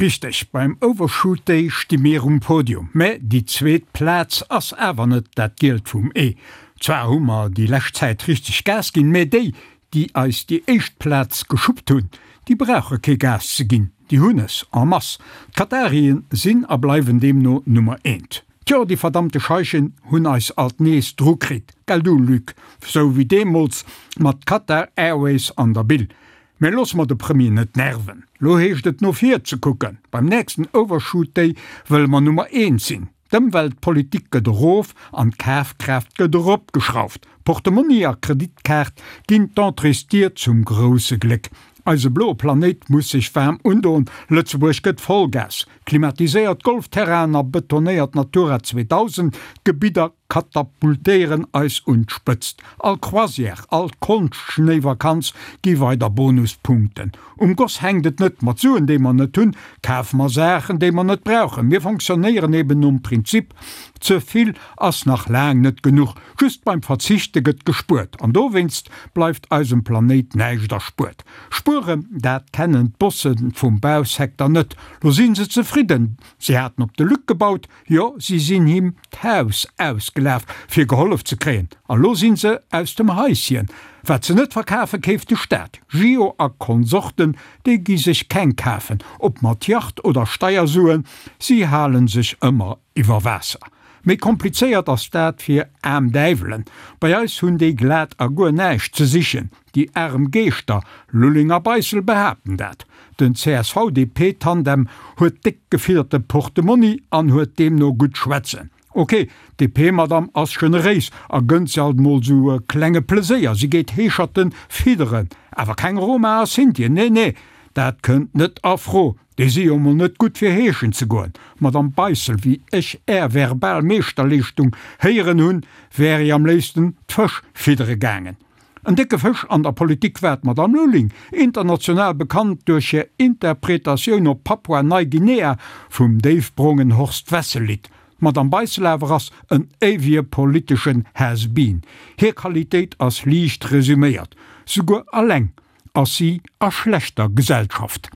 Richteg, beim Overshoot Day sti mir um Podium, mä déi zweet Plaz ass awer net dat Gielt vum Ee. Zwar hu mer déi lescht Zäit richteg Gas ginn, mä déi, déi eis déi éischt Plaz geschuppt hunn, déi brauche kee Gas ze ginn, déi hunn es en masse. D'Katarien sinn a bleiwen deemno Nummer eent. Tjo, déi verdammte Scheichen hunn eis alt nees dru kritt, gell du Luc, sou wéi deemools mat Qatar Airways an der Bille. Mä loosse mer de Premier net nerven. Lo heescht et no vir ze kucken. Beim nächsten Overshoot Day wëlle mer Nummer eent sinn. D'Ëmweltpolitik gëtt erof an d'Kafkraaft gëtt eropgeschrauft. Portemonni a Kreditkaart ginn d'Entréesdier zum grousse Gléck. Eise bloe Planéit muss sech waarm undoen. Lëtzebuerg gëtt Vollgas. Klimatiséiert Golfterrainen a betonéiert Natura 2000 Gebidder katapultéieren eis un d'Spëtzt. All Croisière, all Konschtschnéivakanz gi weider Bonuspunkten. Um Goss hänkt et net, mat Suen déi mer net hunn, kafe mer Saachen déi mer net brauchen. Mir fonctionnéieren eben nom Prinzip, ze vill ass nach laang net genuch. Just beim Verzichte gëtt gespuert an dowéinst bleift eisem Planéit näischt erspuert. Spueren, dat kennen d'Bosse vum Bausecteur net. Lo si se zefridden, si haten op de Luc gebaut, jo si sinn him d'Haus ausgelaf fir gehollef ze kréien, a lo si se aus dem Haisschen. Wat se net verkafen, keeft de Staat. Gio a Konsorten, déi gi sech keng kafen, ob mat Yacht oder Steiersuen, si halen sech ëmmer iwwer Waasser. Méi komplizéiert ass dat fir aarm Däiwelen. Bei eis hunn déi glat a guer näischt ze sichen. Déi arem Geeschter, Lulling a Beissel, behaapten dat. Den CSV-DP-Tandem huet déck gefidderte Portemonni an huet deemno gutt schwätzen. Ok, d'DP-Madame ass generéis a gënnt se alt mol sou e klenge Pleséier, si geet Heescherten fidderen, awer keng Roma a Sintien, nee nee, dat kënnt net a Fro, déi si jo mol net gutt fir heeschen ze goen. Madame Beissel, wéi ech är verbal Meeschterleeschtung héieren hunn, wär i am léifsten d'Fësch fiddere gaangen. En décke Fësch an der Politik war d'Madame Lulling, international bekannt duerch hir Interpretatioun op Papua-Neiguinea vum déifbrongen Horst Wessel-Lidd. D'Madame Beissel awer ass en éiwege politeschen Has-been. Hir Qualitéit ass liicht resuméiert, Souguer alleng ass si a schlechter Gesellschaft.